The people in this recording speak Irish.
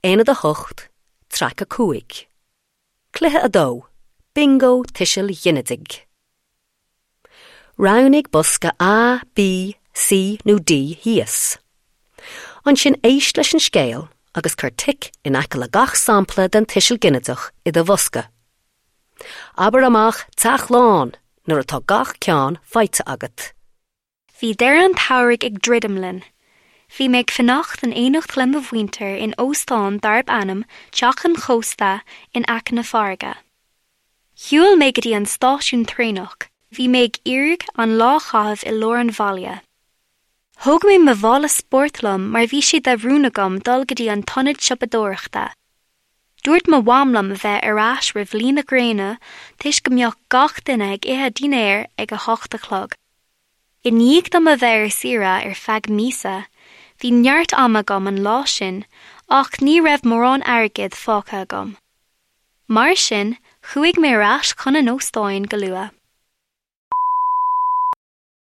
Aonad 8, Traic 5. Cluiche 2, Bingo Tuisil Ghinidigh. Roghnaigh bosca A, B, C nó D thíos. Ansin éist leis an scéal agus cuir tic in aice le gach sampla den tuiseal ginideach i do bhosca. Abair amach 'Teach lán' nuair atá gach ceann faighte agat. Bhí deireadh an tsamhraidh ag druidim linn. Bhí mé ag fanacht in éineacht le mo mhuintir in óstán darb ainm Teach an Chósta in aice na farraige. Shiúil mé go dtí an stáisiún traenach, bhí mé ag iarraidh an lá a chaitheamh i lár an bhaile. Thóg mé mo mhála spóirt liom mar bhí sé de rún agam dul go dtí an t-ionad siopadóireachta. Dúirt mo mham liom a bheith ar ais roimh luí na gréine toisc go mbeadh gach duine ag ithe dinnéir ag a hocht a chlog. I ndiaidh dom a bheith ar saoire ar feadh míosa, bhí neart ama agam an lá sin ach ní raibh mórán airgid fágtha agam. Mar sin, chuaigh mé ar ais chun an óstáin go luath.